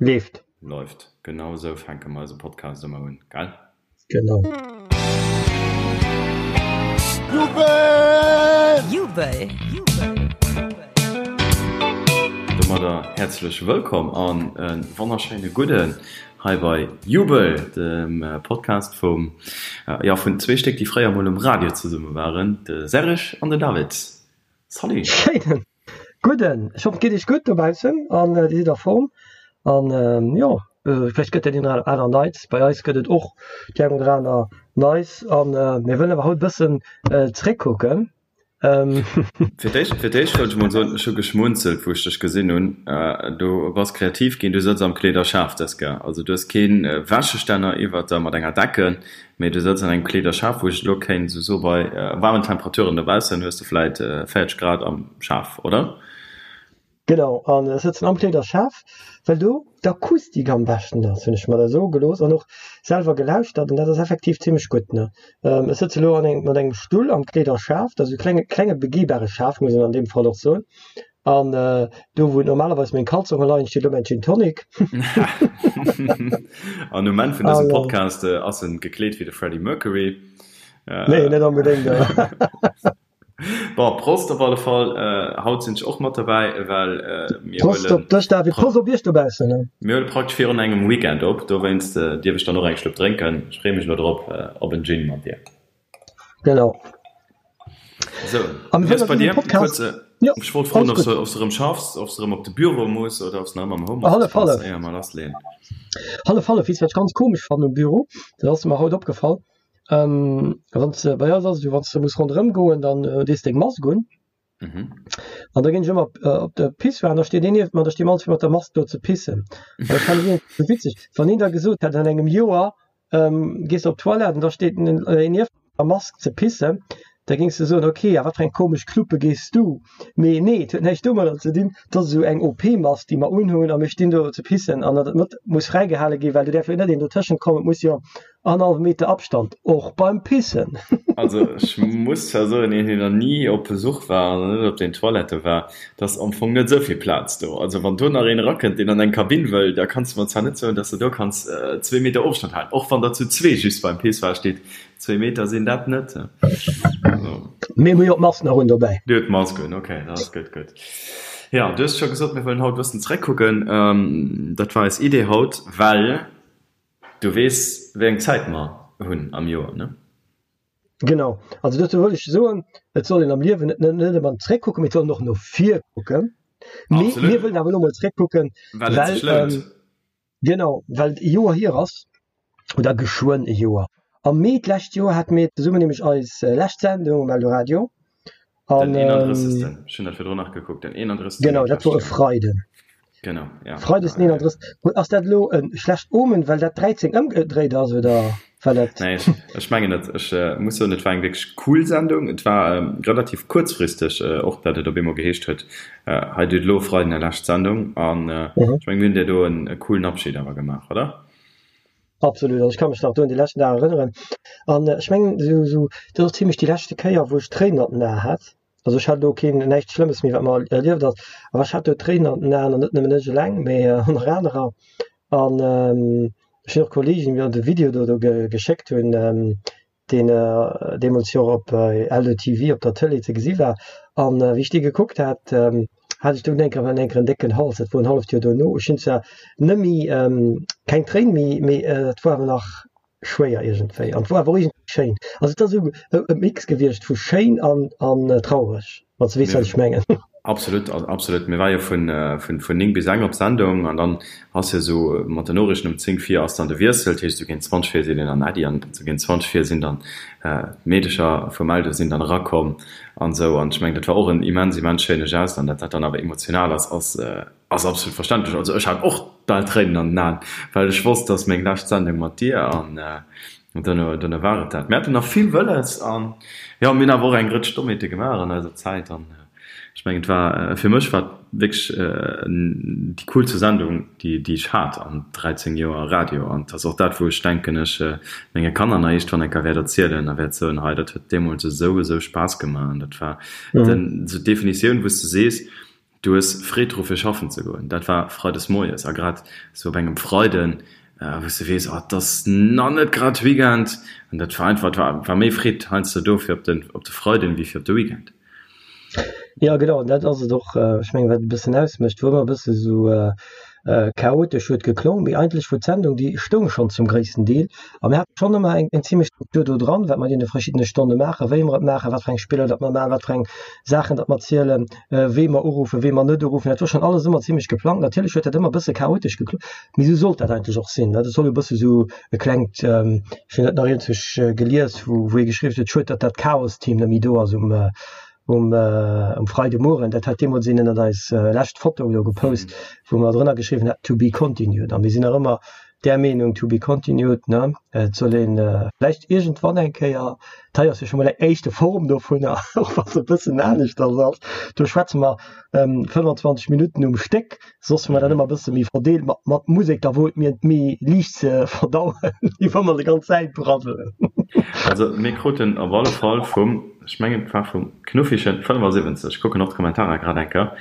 Leeft. Läuft. Genau esou fänke mer eise Podcast ëmmer un, gell? Genau. Jubel! Jubel! Domadder häerzlech wëllkomm an e wonnerschéine Gudden hei bei Jubel, dem Podcast vum, jo, vun zwee Stéck, déi fréier mol um Radio zesumme waren, de Serge an den David. Salut! Schéinen Gudden, ech hoffen et geet iech gutt dobaussen an dir sidd a Form an jo vläicht gëtt dat een oder aner Neits. Bei eis gëtt et och déi eng oder aner Neis an mir wëllen awer haut e bëssen zréckkucken. Fir d'éischt fir d'éischt wëllt ech mol soen, ech hu geschmunzelt wou ech dech gesinn hunn. Du bass kreativ ginn, du sëtz am Kleederschaf dës Kéier. Also du hues kee Wäschestänner iwwert der mat enger Decken, Mee du sëtz an engem Kleederschaf, wou ech elo kéint esou soe bei waarmen Temperaturen dobaussen hues de vläit 40 Grad am Schaf, oder? Genau, an ech sëtzen am Kleederschaf, well do d'Akustik am beschten ass, hunn ech mer da soe gelooss an och selwer gelauschtert an dat ass effektiv zimmlech gutt, ne. Ech sëtze elo an engem, mat engem Stull am Kleederschaf, dat ass e klenge, klenge begehbare Schaf, muss een an deem Fall och soen. An do wou normalerweis meng Kalzonge leien, steet elo mäin Gin Tonic. An um Enn vun dësem Podcast ass en gekleet wéi de Freddie Mercury. Nee, net onbedéngt. Bon, Prost op alle Fall. Haut sinn ech och mat derbäi, well mir huelen. Prost op dech, David. Prost op iech dobaussen. Mir huele praktesch virun engem Weekend op, dowéinst dierf ech dann och eng Schlupp drénken. Ech freeë mech elo drop op en Gin mat dir. Genau. So, an wéi ass bei dir? Podcast? Kurz, ja, ech wollt froen, ob du, ob du erëm schaffs, ob du erëm op de Büro muss oder ob du nach ëmmer am Homeoffice hallef, hallef. Éier mer lassleeën. Hallef, hallef. Weess, wat ech ganz komesch fannen um Büro? Dat ass mer haut opgefall. Ähm, wann du, bei eis ass et jo, wann du muss ronderëm goen, dann äh, dees deng Mask un. Mhm. An da ginn ech ëmmer op, äh, op de Pissoir an da steet een nieft mer, da sti mer all zwee mat der Mask do ze pissen. An dat fand ech iergendwéi witzeg. Wann een da gesot hätt, an engem Joer ähm, gees de op d'Toilette an da steet en äh, een nieft der Mask ze pissen, da géings de soen, okay, a wat fir eng komesch Knuppe gees du? Mee nee, et huet näischt domadder ze dinn, dat ass esou eng OP-Mask, déi mer unhunn a mir stinn do ze pissen an dat mat muss fräigehale ginn, well do däerf jo net een dotëschent kommen, et muss jo Annerhallwe Meter Abstand, och beim Pissen. Also ech muss zwar soen, een deen nach ni op Besuch war an net op den Toilette war, et ass am Fong net esou vill Plaz do. Also wann do nach een erakënnt, deen an eng Kabinn wëll, da kanns de mer zwar net soen, dass de do kanns zwee Meter Ofstand halen, och wann der zu zwee just beim Pissoir steet. Zwee Meter sinn dat net. Also. Mir hu jo d'Mask nach un dobäi. Dir hutt d'Mask un, okay, dat ass gutt, gutt. Jo, du hues scho gesot, mir wëllen haut e bëssen zeréckkucken. Dat war eis Idee haut, well Du weess, wéi eng Zäit mer hunn am Joer, ne? Genau. Also dozou wëll ech soen, et soll een am Liewen net net ëmmer zréckkucken, mee et soll een och no vir kucken. Mee mir wëllen awer elo mol zréckkucken, well et sech lount. Genau, well et e Joer hier ass, oder geschwënn e Joer. Am Mee d'lescht Joer hate mir zesummen nämlech eis lescht Sendung um Eldoradio. An, den 31. Ähm, Ech hunn dat virdrun nach gekuckt, den 31. Genau, dat wor e Freiden. Genau, ja. Freides den 31. Ass dat elo e schlecht Omen, well dat 13 ëmgedréit ass, oder well dat. Nee, ech, ech mengen net. Ech äh, muss soen, et war eng wierklech cool Sendung. Et war ähm, relativ kuerzfristeg äh, och, dat et op eemol geheescht huet, äh, hei dir hutt elo Freiden är lescht Sendung. An äh, mhm. ech meng, mir hunn dir do en e coolen Abschied awer gemaach, oder? Absolut, also ech ka mech nach do un déi leschten Dag erënneren. An ech mengen esou, esou, dat ass zimlech déi leschte Kéier, wou ech Tréinen an den Aen hat. Also ech hat elo keen, näischt Schlëmmes méi, wat mer erlieft ass, awer ech hat do Tréinen an den Aen an net nëmmen ech eleng, mee och nach anerer. An ech hunn och Kollegen, déi mir de Video do do geschéckt hunn, deen deemools jo och op LDTV op der Tëlee ze gesi war. An wéi ech dee gekuckt hat, hat ech dunn enker enker en décken Hals. Dat wor en halleft Joer dono. Ech hunn zwar net méi, keng Tréin méi, mee et wor awer nach schwéier iergendwéi. An et wor awer och iergendwéi schéin. Also et ass esou e Mix gewiescht vu schéin an traureg. Wann s de weess, wat ech mengen. Absolut, absolut. Mir war jo vun, vun, vun 9 bis eng op Sendung an dann ass jo esou mat den Noriichten um 10 vir ass dann de Wiessel, dat heescht esou géint 20 vir sinn een an Äddi an esou géint 20 vir sinn dann d'Meedecher vum Eldo sinn dann erakomm an esou an ech mengen dat war och en immens, immens schéine Geste an dat dat dann awer emotional ass, ass, ass absolut verständlech. Also ech hat och bal Tréinen an den Aen, well ech wosst, dass meng lescht Sendung mat dir an duerno, duerno war et dat. Mir haten nach vill wëlles an jo, mir hunn awer och eng Rëtsch Dommheete gemaach an eiser Zäit an ech mengen et war, fir mech war et wierklech déi coolste Sendung, déi, déi ech hat an 13 Joer Radio an et ass och dat, wou ech denken, ech menge Kanner nach iergendwann eng Kéier wäert erzielen a wäert soen, hei dat huet deemools esou, esou Spaass gemaach an dat war den, esou d'Definitioun, wou s de sees,. Du hues Freed dru fir schaffen ze goen. Dat war freides moies a grad sou op engem Freiden, wou s de weess, oh et ass nach net grad Weekend. An dat war einfach, et war war méi Freed heiansdo do fir op de op de Freiden wéi fir op de Weekend. Jo genau, dat ass et och. Ech mengen wat et e bëssen ausmécht, wou ëmmer e bësse sou chaotesch huet geklongen, mee eigentlech wor d'Sendung, déi stoung schonn zum gréissten Deel a mir haten schonn ëmmer eng eng zimlech Struktur do dran, wat mer an deene verschiddene Stonne maachen, wéi mer et maachen, wat fir eng Spiller datt mer maachen, wat fir eng Saachen datt mer zielen, wee mer uruffen, wee mer net uruffen. Dat wor schonn alles ëmmer zimlech geplangt. Natierlech huet dat ëmmer e bësse chaotesch geklongen, mee esou sollt dat eigentlech och sinn. Dat soll e bësse sou e klengt, ech hunn dat nach iergendwou gelies, wou wou ee geschriwwen huet, schued datt dat Chaos-Team net méi do ass um um um Freidemueren, dat hat deemools een ënnert eis lescht Foto do gepost, wou mer drënner geschriwwen haten, to be continued. A mir sinn nach ëmmer där Meenung, to be continued, ne? Et soll een vläicht iergendwann eng Kéier, dat hei ass jo scho mol eng éischte Form dovunner, och wa se e bëssen aneschters ass, do schwätze mer 25 Minutten um Stéck, Soss hu mer dat ëmmer e bësse méi verdeelt mat, mat Musek, da wor et mir méi liicht ze verdauen, wéi wa mer déi ganz Zäit braddelen. Also mir kruten op alle Fall vum, ech mengen et war vum Knuffichen 75, ech kucken och d'Kommentarer grad eng Kéier,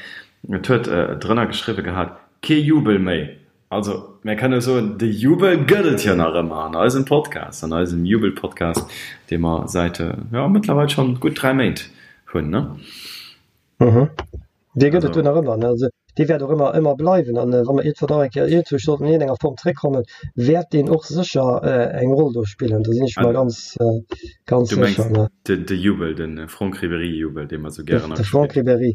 et huet drënner geschriwwe gehat, Kee Jubel méi! Also mir kënne soen, de Jubel gëtt et jo nach ëmmer an eisem Podcast, an eisem Jubel-Podcast, dee mer säit, jo, mëttlerweil schonn gutt 3 Méint hunn, ne? Mhm. Dee gëtt et do nach ëmmer, ne? Also dee wäert och ëmmer ëmmer bleiwen an wa mer iergendwann och eng Kéier iergendwou sollten an iergendenger Form zréckkommen, wäert deen och sécher eng Roll do spillen. Do sinn ech mer ganz ganz Du mengs sécher, ne? de de Jubel, de Franck Ribéry-Jubel, dee mer esou gären De Franck Ribéry.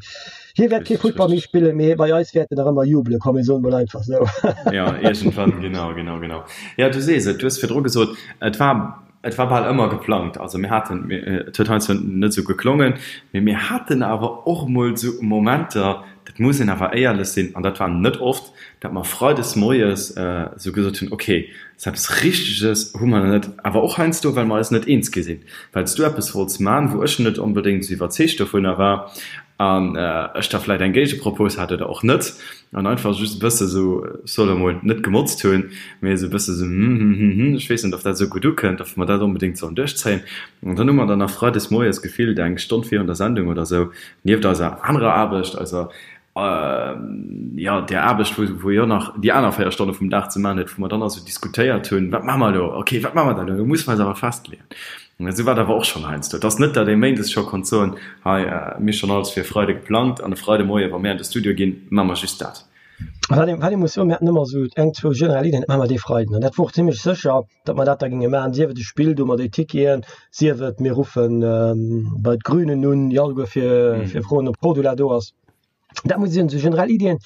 Hie wäert kee Futtball méi spillen, mee bei eis wäert en nach ëmmer jubele kommen, mir soen emol einfach esou. Jo, iergendwann, genau, genau, genau. Jo, du sees et, du hues virdru gesot, et war Et war bal ëmmer geplangt. Also mir haten, et huet heiansdo net esou geklongen, mee mir haten awer och emol esou Momenter, dat muss een awer éierlech sinn, an dat war net oft, datt mer freides moies esou gesot hunn, okay, esou eppes Richteges hu mer nach net, awer och heiansdo, well mer eis net eens gi sinn, well s du eppes wollts man, wou ech net onbedéngt esou iwwerzeegt dovunner war an ech da vläicht eng Géigepropos hat oder och net. An einfach just e bësse sou, ech soll elo mol net gemotzt hunn, mee esou e bësse sou hm hm hm hm, ech weess net, ob dat esou gutt ukënnt, ob mer dat onbedéngt sollen duerchzéien. An dann hu mer dann nach freides moies gefillt eng Stonn virun der Sendung oder sou, nieft eiser anerer Aarbecht, eiser, jo, där Aarbecht, wou, wou jo nach déi aner 4 Stonne vum Dag ze maachen huet, wou mer dann also diskutéiert hunn, wat maache mer elo, okay, wat maache mer dann elo, elo musse mer eis awer festleeën. Esou war et awer och schonn heiansdo. Et ass net, datt ee méindes scho konnt soen, hei, mir hu schonn alles fir e Freide geplangt an e Freidemoie wa mir an de Studio ginn, maache mer just dat. Wat ee, wat ee muss soen, mir haten ëmmer esou eng, zwou generell Iddien, dat maache mer dee Freiden. An dat wor och zimlech sécher, datt mer dat da géinge maachen, sief et e Spill do mat déi Ticketen, sief et mir ruffe bei d'Grünen un, jo alleguer fir, fir froen, ob Cordula do ass. Dat muss ech soen, esou generell Iddien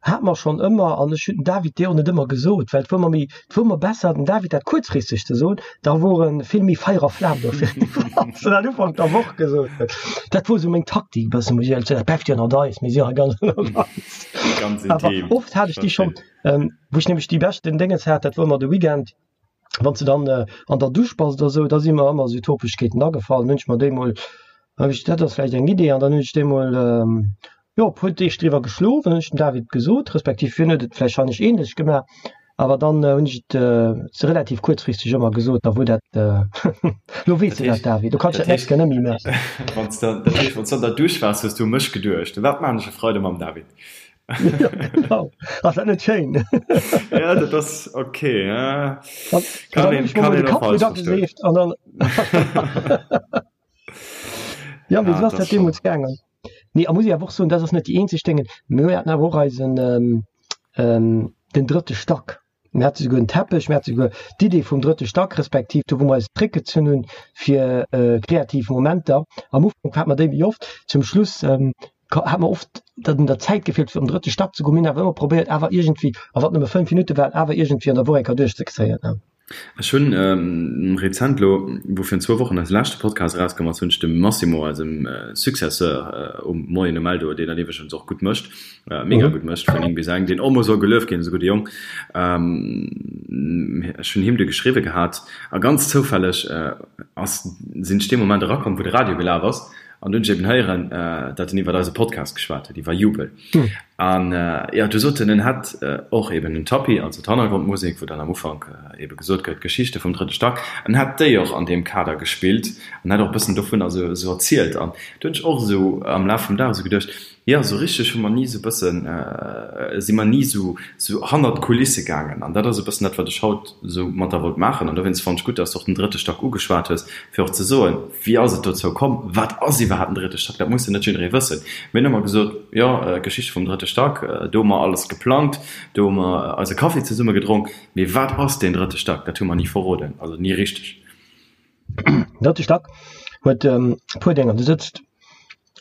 hate mer schonn ëmmer an ech hunn den David déi och net ëmmer gesot, well et wor mer méi, et wor mer besser dem David dat kuerzfristeg ze soen, da wor e vill méi Feier a Flam dofir, wann s de dat Ufank der Woch gesot hues. Dat wor esou meng Taktik e bëssen, muss ech éierlech soen. Dat bleift jo ënnert eis, mir si jo hei ganz ënnert eis. Ganz Awer intim, oft hat ech déi schonn, wou ech nämlech déi beschten Déngens hat, dat wor ëmmer de Weekend, wann s de dann an der Dusch bass oder esou, da si mer ëmmer esou Topegkeeten agefall. Dann hunn ech mer déi mol, hab ech, dat ass vläicht eng Idee, an dann hunn ech déi mol, jo, e puer Deeg driwwer geschlof, dann hunn ech dem David gesot, respektiv hien huet et vläicht ähnlech gemaach, awer dann hunn ech et se relativ kuerzfristeg ëmmer gesot, da wor dat, lo weess de dat, David, du kanns dat nächst Kéier net méi maachen. Wann s de, dat heescht, wann s du an der Dusch waars, hues du u mech geduecht, Wat maachen ech e Freide mam David? Ja, genau. Ass dat net schéin? Ja, dat ass okay. Ja. Kann een, kann een och falsch verstoen. An dann Ja, wéi ass dat deemools gaangen? Nee, a muss ich awer och soen, dat ass net déi eenzeg Déngen. Mir haten awer och eisen ähm, ähm, den drëtte Stack. Mir hate souguer en Teppech, mir hate souguer d'Idee vum drëtte Stack, respektiv do wou mer eis zréckgezunn hunn fir kreativ Momenter. Am Ufank hate mer déi méi oft, zum Schluss hat mer oft, datt un der Zäit gefeelt huet fir an den drëtte Stack ze goen. Mir hunn awer ëmmer probéiert awer iergendwéi, a wann et nëmme 5 Minutte waren, awer iergendwéi an der Woch eng Kéier duerchzekréien. Ech hunn rezent elo, wou virun zwou Wochen eise leschte Podcast erauskomm ass, hunn ech dem Massimo, eisem Successeur um Moien um Eldo, deen dat iwwregens och gutt mécht, mega gutt mécht vun 9 bis eng, deen och mol soll gelueft ginn, ass e gudde Jong, ech hunn him du geschriwwe gehat a ganz zoufälleg ass, sinn ech dee Moment erakomm, wou de Radio gelaf ass an du hunn ech eben héieren, datt en iwwert eise Podcast geschwat huet, iwwer Jubel. An jo, du sot en, en hätt och eben den Tapis, also d'Hannergrondmusek, wou dann am Ufank ebe gesot gëtt, d'Geschichte vum drëtte Stack, en hätt déi och an deem Kader gespillt an hätt och e bëssen dovunner esou erzielt. An do hunn ech och esou am Laf vum Dag esou geduecht, Jo, esou richteg hu mer ni esou e bëssen, si mer ni esou hannert d'Kulisse gaangen. An dat ass e bëssen dat, wat ech haut esou mat der wollt maachen. An dowéinst fannen ech gutt, dass de och den drëtte Stack ugeschwat hues, fir och ze soen, Wéi ass et dozou komm? Wat ass iwwerhaapt den drëtte Stack? Dat muss jo net jidderee wëssen. Mir hunn ëmmer gesot, Jo, Geschichte vum drëtte Stack, do hu mer alles geplangt, do hu mer eise Kaffi zesumme gedronk. Mee wat ass deen drëtte Stack? Dat hu mer ni verroden, also ni richteg. Den drëtte Stack huet e puer Dénger. Do sëtzt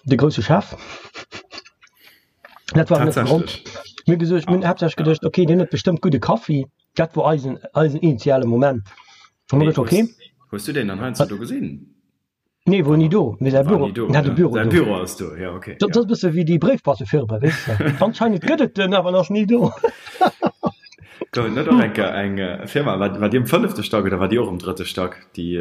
de grousse Chef. Dat war net de Grond. Mir hu gesot, mir hunn haaptsächlech geduecht, okay, deen huet bestëmmt gudde Kaffi. Dat wor eisen, eisen initiale Moment. Hu mer geduecht, okay. Hues du deen dann heiansdo do gesinn? Nee, wor ni do. Mee säi Büro, en hat e Büro do. Säi Büro ass do, jo, okay. Dat ass e bësse wéi déi Bréifboîtefirma, weess de. Anscheinend gëtt et en, awer en ass ni do. Gouf et net och eng Kéier eng Firma, war, war déi um fënnefte Stack oder war déi och um drëtte Stack, déi,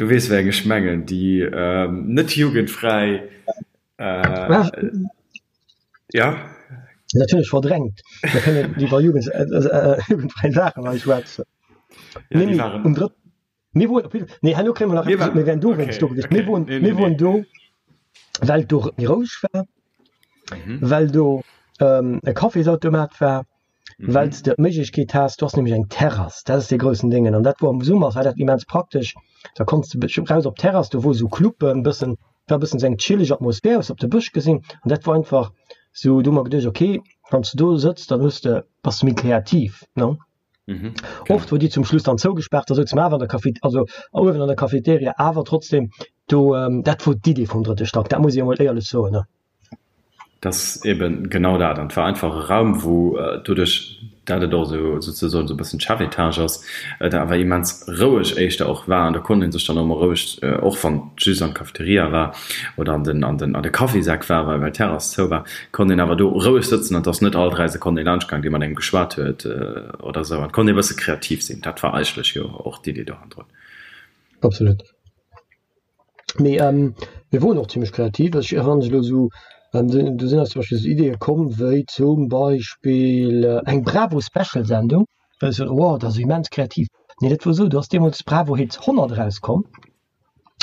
du weess wéi eng ech mengen, déi net jugendfräi, ja? Natierlech verdrängt. Mir kënnen iwwer Jugend, jugendfräi Saachen hei schwätzen. Ja, déi waren. Um drëtten. Mir woren op jidde Nee, herno kréie mer nach eppes, mir wären do wéinst do gewiescht. Mir woren, mir woren do, well do méi roueg war, well do e Cafésautomat war, well s de d'Méiglechkeet has, do ass nämlech eng Terrass, dat ass dee groussen Déngen an dat wor am Summer war dat immens praktesch, da konns de raus op d'Terrass, do wor esou Cluben, bëssen, war bëssen esou eng chilleg Atmosphär, hues op de Bësch gesinn an dat wor einfach esou, do hu mer geduecht, okay, wann s de do sëtz, dann hues de, bass de méi kreativ, ne? Mhm, Oft wor déi zum Schluss dann zougespaart, da souze mer awer an der Café, also uewen an der Cafeteria, awer trotzdem do, dat wor d'Idee vum drëtte Stack, dat muss ech emol éierlech soen, ne. Dat ass eben genau dat. An et war einfach e Raum, wou doduerch, dat et och esou souzesoen esou e bëssen d'Chefetage ass, et awer immens roueg éischter och war. An do konnt ee sech dann och emol roueg, och wann et just an d'Cafeteria war oder an den, an den, an de Caféseck war, well d'Terrass zou war, konnt een awer do roueg sëtzen an et ass net all 3 Sekonnen ee laanscht gaang, dee mat engem geschwat huet oder esou. An et konnt ee bësse kreativ sinn. Dat war eigentlech jo och d'Idee do hannendrun. Absolut. Mee mir woren och zimmlech kreativ. Ech erënnere mech elo esou, do sinn eis zum Beispill esou Ideeë komm wéi zum Beispill eng Bravo-Special-Sendung, wou ech sot, wow, dat ass immens kreativ. Nee, dat wor esou, do ass deemools Bravo Hits 100 erauskomm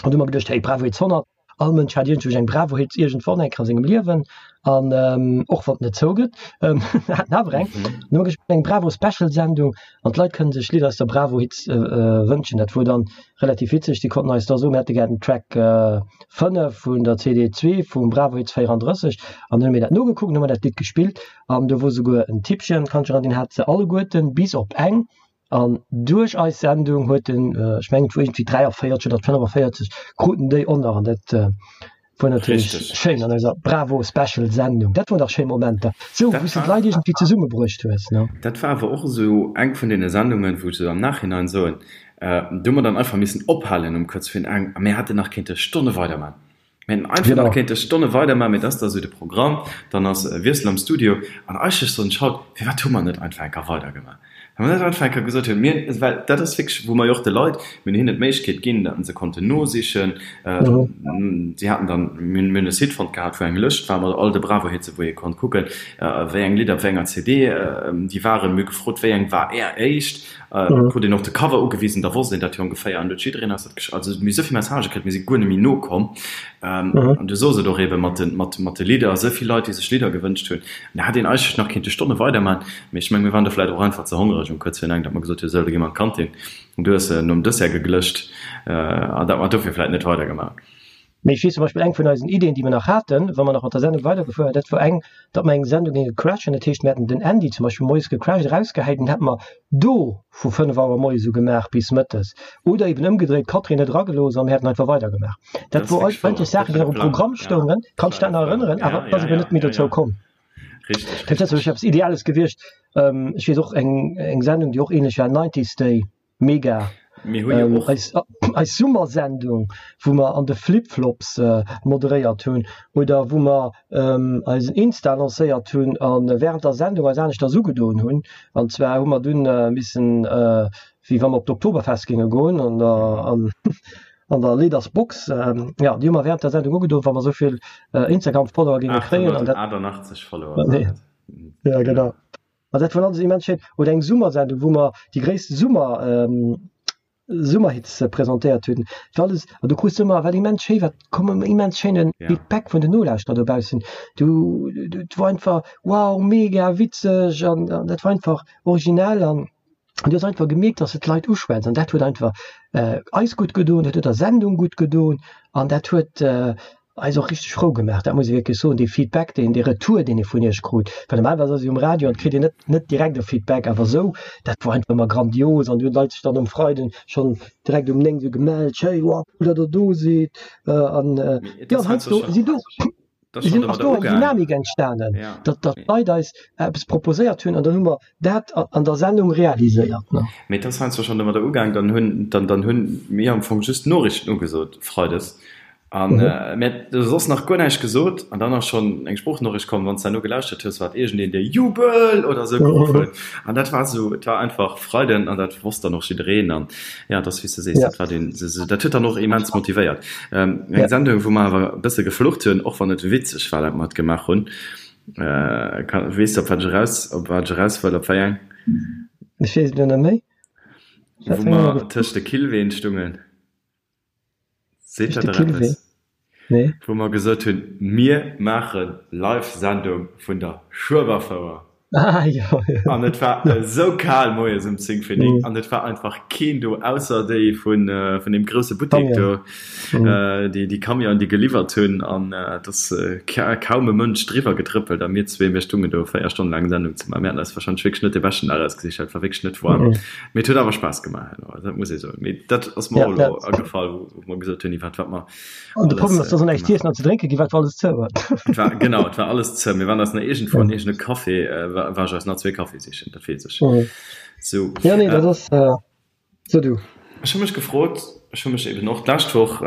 an du hu mer geduecht, hey, Bravo Hits 100, All Mënsch hat iergendwou eng Bravo-Hits iergendwann eng Kéier a sengem Liewen an och wann et net zougëtt, hat en awer eng. An hu mer gespillt eng Bravo-Special-Sendung an d'Leit kënnen sech Lidder aus der Bravo-Hits wënschen. Dat wor dann relativ witzeg, déi konnten eis da soen, mir hätte gär den Track 5 vun der CD 2 vum Bravo-Hits 34 an dann hu mir dat nogekuckt an hu mer dat Lidd gespillt an do wor souguer en Tippchen, kann ech erënneren, deen hat se alleguerten bis op eng An duerch eis Sendung huet en, ech mengen et wor iergendwéi 43 oder 45, kruten déi och nach. An dat wor natierlech schéin an eiser Bravo Special Sendung. Dat woren dach schéi Momenter, sou wou s de d'Leit iergendwéi zesummebruecht hues, ne? Dat war awer och esou eng vun deene Sendungen, wou ech esou am Nachhinein soen, do hu mer dann einfach missen ophalen um kuerz virun eng a mir hätten nach kéinte Stonne weiderman. Mir hätten einfach nach kéinte Stonne weiderman, mee dat ass da sou de Programm, dann ass Wiessel am Studio an eigentlech soen ech haut, firwat hu mer net einfach eng Kéier weidergemaach? Wa mer net einfach eng Kéier gesot hunn, mir, well dat ass wierklech, wou mer jo och de Leit, mir hunn hinnen d'Méiglechkeet ginn, datt se konnten nosichen, si haten dann, mir hunn e Site fonnt gehat, wou eng Lëscht war mat all de Bravo-Hitze wou ee konnt kucken, wéi eng Lidder op wéi enger CD déi waren. Mir hu gefrot, wéi eng war Är éischt? Krut een och de Cover ugewisen, da wosst een dat jo ongeféier an huet jiddereen eis dat gesch-, also mir hu souvill Messagë kritt, mir si guer net méi nokomm. An du sos et och eebe mat de, mat, mat de Lidder, souvill Leit, déi sech Lidder gewënscht hunn, an da hätt een eigentlech nach kéinte Stonne weiderman, mee ech meng, mir waren do vläicht och einfach ze hongereg um kuerz virun eng, datt mer gesot hunn, sou, da gi mer an d'Kantin an du hues nom Dessert geglëscht an datt mer dofir vläicht net weidergemaach hunn. Mee ech weess zum Beispill, eng vun eisen Ideen, déi mer nach haten, wa mer nach mat der Sendung weidergefuer wären, dat wor eng, datt mer eng Sendung géinge crashen. Dat heescht, mir hätten den Andy zum Beispill moies gecrasht, erausgehäit an hätte mer do vu 5 Auer moies u gemaach bis mëttes. Oder eben ëmgedréit, d'Catherine net eragelooss a mir hätten einfach weidergemaach. Dat wor eigentlech Saachen, déi nach um Programm stoungen. Kanns dech dat nach erënneren? Awer et ass eben net méi dozou komm. Dat ass eppes Ideales gewiescht. Ech weess och eng Sendung, déi och ähnlech war, Nineties Day. Mega. Mir hu jo och. Eis, eis Summersendung, wou mer an de Flip-Flops moderéiert hunn oder wou mer eisen Insta lancéiert hunn a wärend der Sendung eis aneschters ugedoen hunn. An zwar hu mer dunn missen, wéi wa mer op d'Oktoberfest géinge goen an an. An der Leaders Box, jo, déi hu mer während der Sendung ugedoen, wa mer esou vill Instagram-Follower géinge kréien. 888 Follower waren et. Ja, genau. An dat war alles immens schéin. Oder eng Summersendung, wou mer déi gréisste Summer, Summerhits presentéiert hunn. Dat war alles, an du krus ëmmer, wat immens schéi war, koum ëmmer immens schéine Feedback vun den Nolauschterer dobaussen. Du, dat war einfach, wow, mega witzeg an dat war einfach originell an du hues einfach gemierkt, dass de d'Leit uschwätz an dat huet einfach eis gutt gedoen, dat huet der Sendung gutt gedoen an dat huet eis och richteg frou gemaach, dat muss ee wierklech soen, dee Feedback, deen, dee Retour, deen ee vun iech krut, well normalerweis ass ee um Radio an et kritt een net, net direkt e Feedback, awer esou, dat wor einfach ëmmer grandios an du hunn d'Leit sech dann um Freiden schonn direkt um 9 esou gemellt, schéi, wow, cool, datt der do sidd an jo, an heiansdo sinn do, sinn, ass do eng Dynamik entstanen, datt, datt d'Leit eis eppes proposéiert hunn an dann hu mer dat an der Sendung realiséiert, ne. Mee et ass heiansdo schonn domadder ugaang, dann hunn, dann, dann hunn mir am Fong just d'Noriichten ugesot freides An mir hat soss nach guer näischt gesot an dann ass schonn eng Sproochnoriicht komm, wann s de herno gelauschtert hues, war et iergendeen, dee Jubel! oder esou geruff huet. An dat war esou, et war einfach Freiden an dat wosst dann och jiddereen. An jo, et ass wéi s de sees, dat war deen, dat huet dann och immens motivéiert. Eng Sendung, wou mer awer e bësse geflucht hunn, och wann et witzeg war, dat mer et gemaach hunn. Weess de, op wat ech eraus, op wat ech eraus wëll, op wéi eng? Ech weess et elo net méi. Wou mer tëscht de Killween stungen. Seet dat der eppes? Nee. Wou mer gesot hunn, mir maache Live-Sendung vun der Schueberfouer. Ah jo, jo. An et war esou kal moies um 10 vir 9 an et war einfach keen do, ausser déi vun deem grousse Buttek do, déi Camionen, déi geliwwert hunn. An et ass kaum e Mënsch driwwer getrëppelt a mir zwee, mir stungen do 4 Stonnen laang Sendung ze maachen. Mir haten eis warscheinlech wierklech net dee beschten Dag ausgesicht, well et war wierklech net waarm. Mee et huet awer Spaass gemaach herno, dat muss ee soen. Mee dat ass mer och elo agefall, wou mer gesot hunn, iwwert wat mer An de Problem ass, dass näischt z'iessen an ze drénke gi war, et war alles zou. Et war, genau, et war alles zou. Mir waren eis nach iergendwou an iergende Café, war ech eis nach zwee Kaffi sichen, dat weess ech. Sou. Jo, nee, dat ass, so du. Ech hu mech gefrot, ech hu mech eben och d'lescht Woch,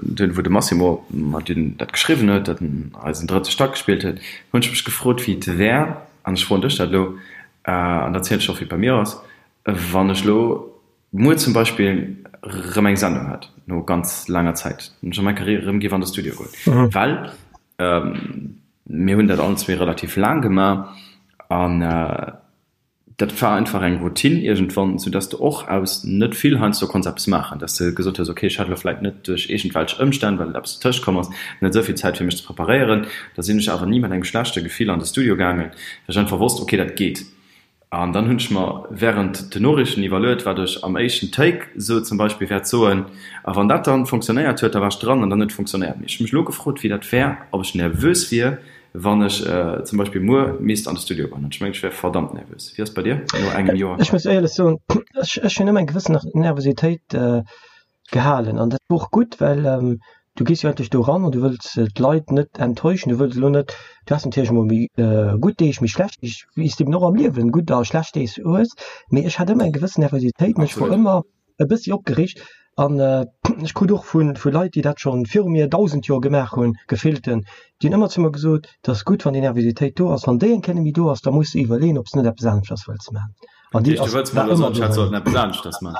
dunn wou de Massimo mer dunn dat geschriwwen huet, datt en eisen drëtte Stack gespillt huet, hunn ech mech gefrot, wéi et wär, an ech froen dech dat elo, An da zielen ech och, wéi et bei mir ass, wann ech elo muer zum Beispill erëm eng Sendung hätt, no ganz laanger Zäit, wann ech an meng Carrière erëm géif an de Studio goen. Well mir hunn dat allen zwee relativ laang gemaach an dat war einfach eng Routine iergendwann, soudass de och aus net vill heiansdo konns eppes maachen, dass de gesot hues, okay, ech hat elo vläicht net duerch iergendwelch Ëmstänn, well eppes dertëscht komm ass, net esou vill Zäit fir mech ze preparéieren. Da sinn ech awer ni mat engem schlechte Gefill an de Studio gaangen, well ech einfach wosst, okay, dat geet. An dann hunn ech mer während den Noriichten iwwerluet, wat ech am éischten Take sou zum Beispill wäert soen. A wann dat dann fonctionnéiert huet, da war ech dran an dann huet et fonctionnéiert. Mee ech hu mech elo gefrot, wéi dat wär, ob ech nervös wier, wann ech zum Beispill muer misst an de Studio goen. An ech mengen, ech wär verdammt nervös. Wéi ass et bei dir no engem Joer? Ech muss éierlech soen, ech hunn ëmmer eng gewëssen Nervositéit gehalen an dat wor och gutt, well du gees jo endlech do eran an du wëlls d'Leit net enttäuschen, du wëlls elo net, du has natierlech emol méi gutt Deeg, méi schlecht Deeg, wéi s de eben och am Liewen gutt a schlecht Deeg hues, mee ech hat ëmmer eng gewëssen Nervositéit an ech wor ëmmer e bëssi opgereegt an ech krut och vu vu Leit, déi dat schonn viru mir 1.000 Joer gemaach hunn, gefillten, déi hunn ëmmer zu mer gesot, et ass gutt, wann déi Nervositéit do ass, wann déi eng Kéier net méi do ass, da muss de iwwerleeën, ob s de net eppes aneschters wëlls maachen. An déi ass, war ëmmer do.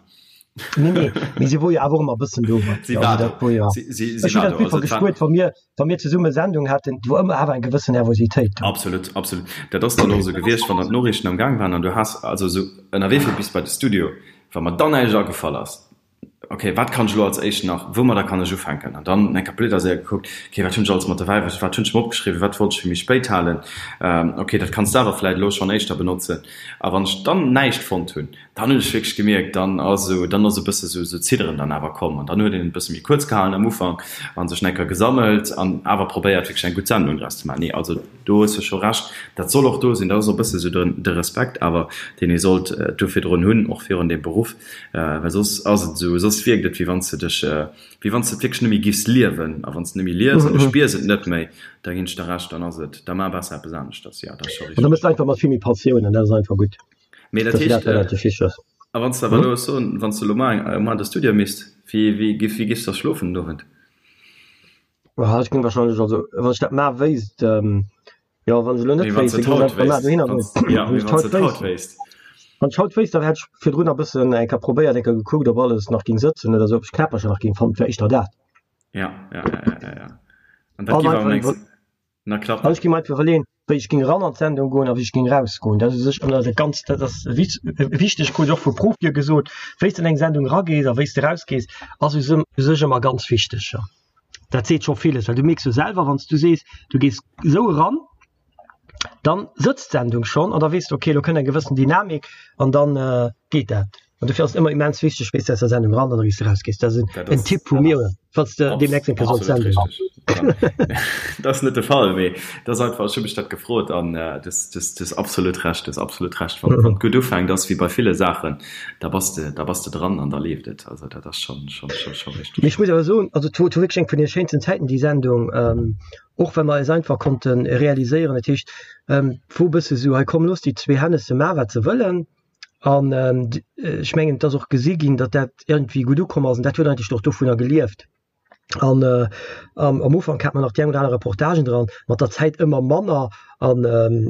Nee, nee, mee si wor jo awer och ëmmer e bëssen do. Si war do. Wor jo. Si, si, si war do. Ech hunn dat einfach gespuert, wa mir, wa mir zesumme Sendung haten, do wor ëmmer awer eng gewëssen Nervositéit do. Absolut, absolut. Dat ass dann och esou gewiescht, wann dann d'Noriichten am Gaang waren an du has also esou ënnerwee fir bis bei de Studio, wa mer dann näischt agefall ass, okay, wat kann ech elo als éischt nach, woumadder kann ech ufänken? An dann eng Kéier séier gekuckt, okay, wat hunn ech alles mat dobäi, wat hunn ech mer opgeschriwwen, wat wollt ech fir méi spéit halen, okay, dat kanns de awer vläicht elo schonn éischter benotzen. A wann ech dann näischt fonnt hunn, Dann hunn ech wierklech gemierkt, dann ass esou, dann ass e bësse sou sou Zidderen dann awer komm an dann huet een et e bësse méi kuerz gehalen am Ufank a sech enker gesammelt an awer probéiert wierklech eng gutt Sendung draus ze maachen. Nee, also do hues de scho Recht, dat soll och do sinn, dat ass och e bësse sou de de Respekt awer, deen ee sollt do virdrun hunn, och virun deem Beruff, well soss ass et esou, soss wierkt et wéi wann s de dech, wéi wann s de et wierklech net méi giffs liewen a wann s de net méi lies an du spiers et net méi, da ginn ech der Recht, dann ass et, da maach besser eppes aneschters, jo, dat ass scho An da richteg. méchs de einfach mat vill méi Passioun an dat ass einfach gutt. Mee dat heescht, a wann s de awer elo soen, wann s de elo mar an de Studio misst, wéi wéi wéi giffs da schlofen den Owend? Ech géing wahrscheinlech, also wann ech dat mar wéisst, jo wann ech elo net wéisst, da géing ech einfach mar dohinner goen. Jo, mee wann s de et haut wéisst. Wann ech haut wéisst, da hätt ech virdrun e bëssen eng Kéier probéiert, eng Kéier gekuckt, ob alles nach géing sëtzen oder esou, ob ech d'Knäppercher nach géing fannen. Et wär éischter dat. Ja, ja, ja, ja, ja, ja. An dat géif awer mengs na klappen. An ech géing mer einfach iwwerleeën, wéi ech géing eran an d'Sendung goen a wéi ech géing erausgoen. Dat ass u sech ëmmer dat ganz, dat ass wichteg, krut ech och vu Profie gesot, wéi s de an eng Sendung eragees a wéi s de erausgees, ass u sech ëmmer ganz wichteg. Dat seet scho villes, well du mierks jo selwer, wann s du sees, du gees esou eran, dann sëtzt d'Sendung schonn an da weess de, okay, elo kënnt eng gewëssen Dynamik an dann geet dat. An dofir ass et ëmmer immens wichteg, wéi s de aus der Sendung eran an wéi s de erausgees. Dat ass en Tipp vu mir, falls de deemnächst eng Kéier solls senden. Dat ass net de Fall, mee dat ass einfach, ech hu mech dat gefrot an du hues absolut Recht, du hues absolut Recht. Wann et gutt ufänkt, ass wéi bei ville Saachen, da bass de, da bass de dran an da leeft et. Also dat ass schonn, schonn, schonn, schonn richteg. Mee ech muss awer soen, also et wor wierklech eng vun de schéinsten Zäiten, déi Sendung. Och well mer eis einfach konnte realiséieren, dat heescht, et wor e bësse sou, hei komm looss déi zwee Hennesse maachen, wat se wëllen. An ech mengen, et ass och gesi ginn, datt dat iergendwéi gutt ukomm ass an dat huet eigentlech och dovunner gelieft. An am Ufank hat mer nach déi eng oder aner Reportagen dran, mat der Zäit ëmmer manner an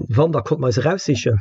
wann, da konnte mer eis eraussichen,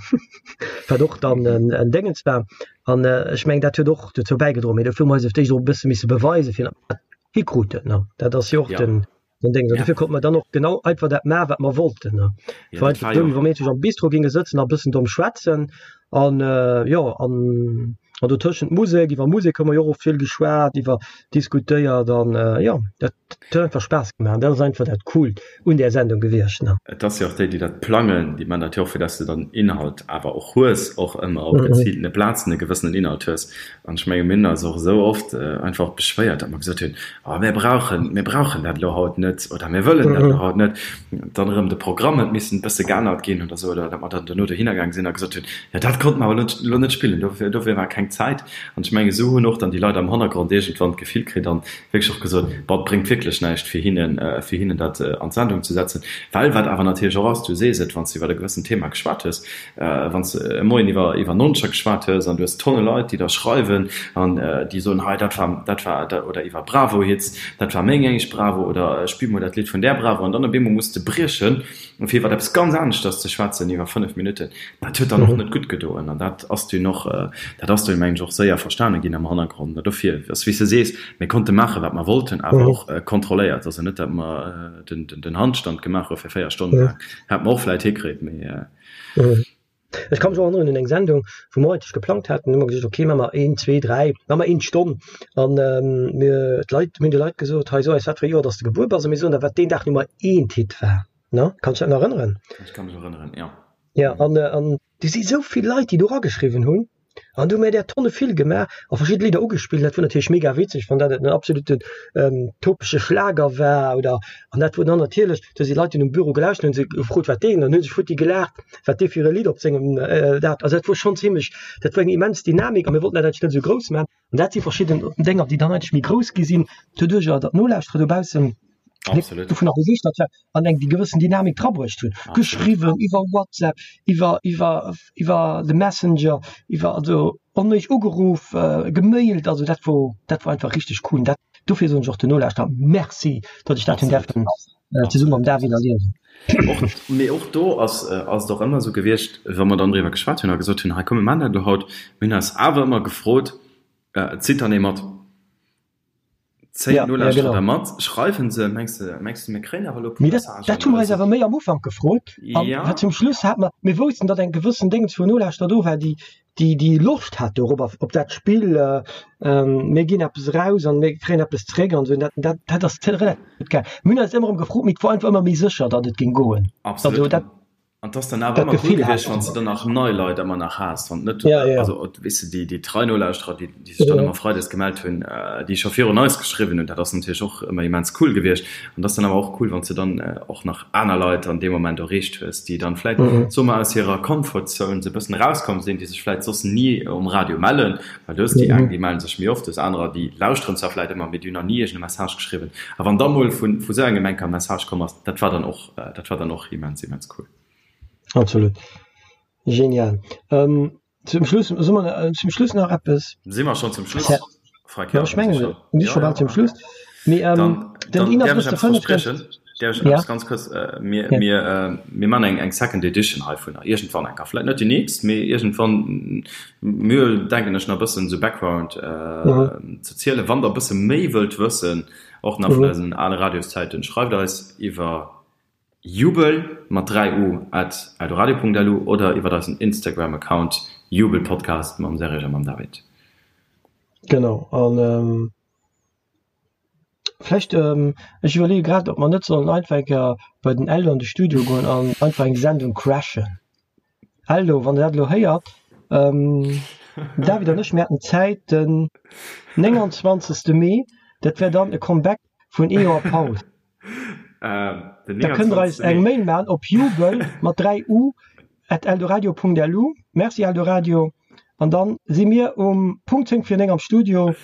wat och dann en Déngens war. An ech mengen, dat huet och dozou bäigedroen. Mee dofir hu mer eis op d'éischt och e bësse misse beweisen, fir datt mer dat hikruten. Dat ass jo och den Den Ding, dofir konnte mer dann och genau einfach dat maachen, wat mer wollten. Ne? Ja, war einfach wéi wa mir am Bistro ginge sëtzen a bëssen domm schwätzen an äh, jo an an dotëschent Musek, iwwer Musek hu mer jo och vill geschwat, iwwer diskutéiert an äh, jo dat huet einfach Spaass gemaach. Dat ass einfach dat Coolt un där Sendung gewiescht. Ne? Et ass jo och déi, déi dat plangen, déi man dat jo och, fir dass de dann Inhalt awer och hues, och ëmmer op geziiltene Plazen e gewëssenen Inhalt hues. An ech menge mir hunn eis och esou oft einfach beschwéiert, datt mer gesot hunn, oh mir brauchen, mir brauchen dat elo haut net oder mir wëllen dat elo haut net. Dann erëm de Programm huet missen e bësse geännert ginn oder esou, oder datt mer dann duerno dohinner gaang sinn a gesot hunn, jo dat konnte mer awer elo net spillen, dofir, dofir war keng Zäit. An ech menge esou hunn och dann déi Leit am Hannergrond iergendwann d'Gefill kritt an wierklech och gesot, bon, et bréngt wierklech näischt fir hinnen, fir hinnen dat an d'Sendung ze setzen. Well wat awer natierlech och ass, du sees et, wann s de iwwer e gewëssent Thema geschwat hues, Wann s de e Moien iwwer iwwer Noncher geschwat hues an du hues Tonne Leit, déi der schreiwen an déi soen, hei dat war dat war oder iwwer Bravo-Hits, dat war meng éischt Bravo oder spill mol dat Lidd vun där Bravo an dann op eemol muss de briechen, fir iwwer eppes ganz aneschters ze schwätzen iwwer 5 Minutten, dat huet dann och net gutt gedoen an dat ass dunn och, dat ass dunn mengen ech och séier verstane ginn am Hannergrond. An dofir ass wéi s de sees, mir konnte maache wat mer wollten, awer och kontrolléiert, also net dat mer den Handstand gemaach hu fir 4 Stonnen laang, hätt mer och vläit hikritt, mee. Ech ka mech och erënneren un eng Sendung, wou mer eigentlech geplangt haten, hu mer gesot, okay, maache mer een, zwee, dräi, maache mer een Stonn. An mir, d'Leit, mir hunn de Leit gesot, hei so eis, wat fir e Joer dass de gebuer bass, a mir soen der, wat deen Dag Nummer eent Hit war. Ne? Kanns dech dat nach erënneren? Ech ka mech erënneren, jo. Ja, an, an du si sou vill Leit, déi do erageschriwwen hunn. An du hu mir där Tonne vill gemaach a verschidde Lidder ugespillt. Dat wor natierlech mega witzeg, wann dat en absoluten topege Schlager war oder an dat wor dann natierlech, do si Leit hunn um Büro gelauschtert, hunn se gefrot wat deen, dann hu sech futti gelaacht, wat dee fir e Lidd op sengem dat. Also dat wor schonn zimlech, dat wor eng immens Dynamik a mir wollten dat eigentlech net esou grouss maachen. An dat si verschidden Dénger, déi dann eigentlech méi grouss gi sinn, doduercher datt d'Nolauschterer dobaussen dovunner begeeschtert waren an eng déi gewëssen Dynamik drabruecht hunn. Geschriwwen iwwer WhatsApp, iwwer, iwwer, iwwer de Messenger, iwwer also onméiglech ugeruff, gemailt. Also dat wor, dat wor einfach richteg cool. Dat, dofir soen ech och den Nolauschterer Merci, datt ech dat hunn däerfen zesumme mam David erliewen. Och, mee och do ass, ass et och ëmmer esou gewiescht, wa mer dann driwwer geschwat hunn a gesot hunn, hei komm mir maachen dat elo haut, mir hunn eis awer ëmmer gefrot, zitt dann ee mat? Zéien Ja, ja d'Nolauschterer genau. da mat? Schreiwen se? Mengs de, mengs de mir kréien awer elo e puer Mee dat, Messagen dat hu oder mer eis esou? awer méi am Ufank gefrot an Ja. wat zum Schluss hat mer, mir woussten, datt eng gewëssen Déngens vun Nolauschterer do war, déi, déi, déi Loscht hat dorobber, op dat Spill, mir ginn eppes eraus an mir kréien eppes zeréck an esou. Dat, dat, dat ass relativ gutt gaangen. Mir hunn eis ëmmer erëm gefrot, mee et wor einfach ëmmer méi sécher, datt et géing goen. Absolut. Also dat. An 't ass dann awer Dat ëmmer cool Gefill hat gewiescht, wann s de dann nach nei Leit ëmmer nach has, wann net, Ja, ja. also weess de, déi, déi trei Nolauschterer, déi, déi sech dann ëmmer freides gemellt hunn, déi scho virun eis geschriwwen hunn, dat ass natierlech och ëmmer immens cool gewiescht. An 't ass dann awer och cool, wann s de dann och nach aner Leit an deem Moment erreecht hues, déi dann vläit, soe mer, aus hirer Comfort Zone sou e bëssen erauskomm sinn, déi sech vläit soss ni um Radio mellen, well du hues déi eng, déi mellen sech méi oft, du hues anerer, déi lauschteren zwar vläit ëmmer, mee déi hunn nach ni iergend e Message geschriwwen. A wann da mol vu, vu sou engem enker e Message komm ass, dat war dann och Dat war dann och immens, immens cool. Absolut. Genial. Ähm, zum Schluss, soll man, äh, zum Schluss nach eppes? Si mer schon zum Schluss? Ja, Frank, ja, ich mengen, schon. mir si scho bal zum Schluss. Mee, ähm, Dann, den dann däerf ech 31.05. eppes verspriechen. Däerf ech eppes ganz kuerz, mir, mir, mir man eng, eng Second Edition heivunner, iergendwann eng Kéier, vläit net déi nächst, mee iergendwann, mir denken ech nach e bëssen esou Background ze zielen. Wann der e bësse méi wëllt wëssen, och nach vun eisen ale Radioszäiten, schreift eis iwwer jubel mat 3 u at eldoradio.lu oder iwwer eisen Instagram Account jubelpodcast mam Serge a mam David. Genau, an Vläicht, ech iwwerleeë grad, ob mer net sollen einfach eng Kéier bei den Eldo an de Studio goen an einfach eng Sendung crashen. Eldo, wann Der dat elo héiert, den David an ech, mir hätten Zäit den 29. Mee, dat wär dann e Comeback vun ee Joer Paus. Da kënnt Der eis eng Mail maachen op jubel mat 3 u at eldoradio.lu. Merci Eldoradio. An dann si mir um Punkt 10 vir 9 am Studio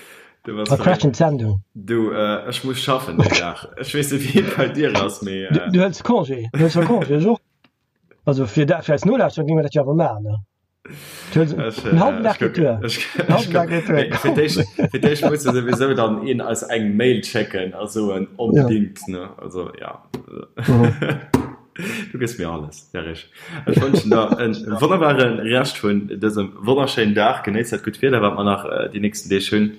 a crashen d'Sendung. Du, ech muss schaffen deen Dag. Ech weess net wéi et bei dir ass, mee. Du hëls Congé, du hëls jo Congé, ech och. Also fir dat, fir eis Nolauschterer géinge mer dat jo awer maachen, ne? Du hëls en hallwen Dag geet duer. En hallwen Dag geet duer. Fir d'éischt, fir d'éischt muss jo souwisou dann een eis eng Mail schécken a soen onbedingt, ne? Also ja. Du gëss mir alles, Serge. Ech wënschen der en wonnerbare Rescht vun dësem wonnerschéinen Dag. Genéiss dat gutt Wieder, wat mer nach déi nächsten Deeg hunn.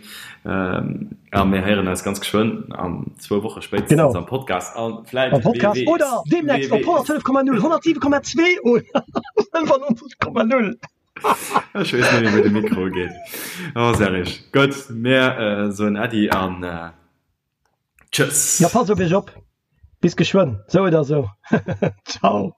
A mir héieren eis ganz geschwënn an zwou Woche spéitstens am Podcast. A vläit, Am Podcast wee oder weess, deemnächst wee op weess. 105,0, 107,2 oder 95,0. Ech weess net méi, wou de Mikro geet. Oh, Serge. Gutt, mir soen Äddi an tschëss. Ja, passt op iech op. Bis geschwënn, sou oder sou. Ciao.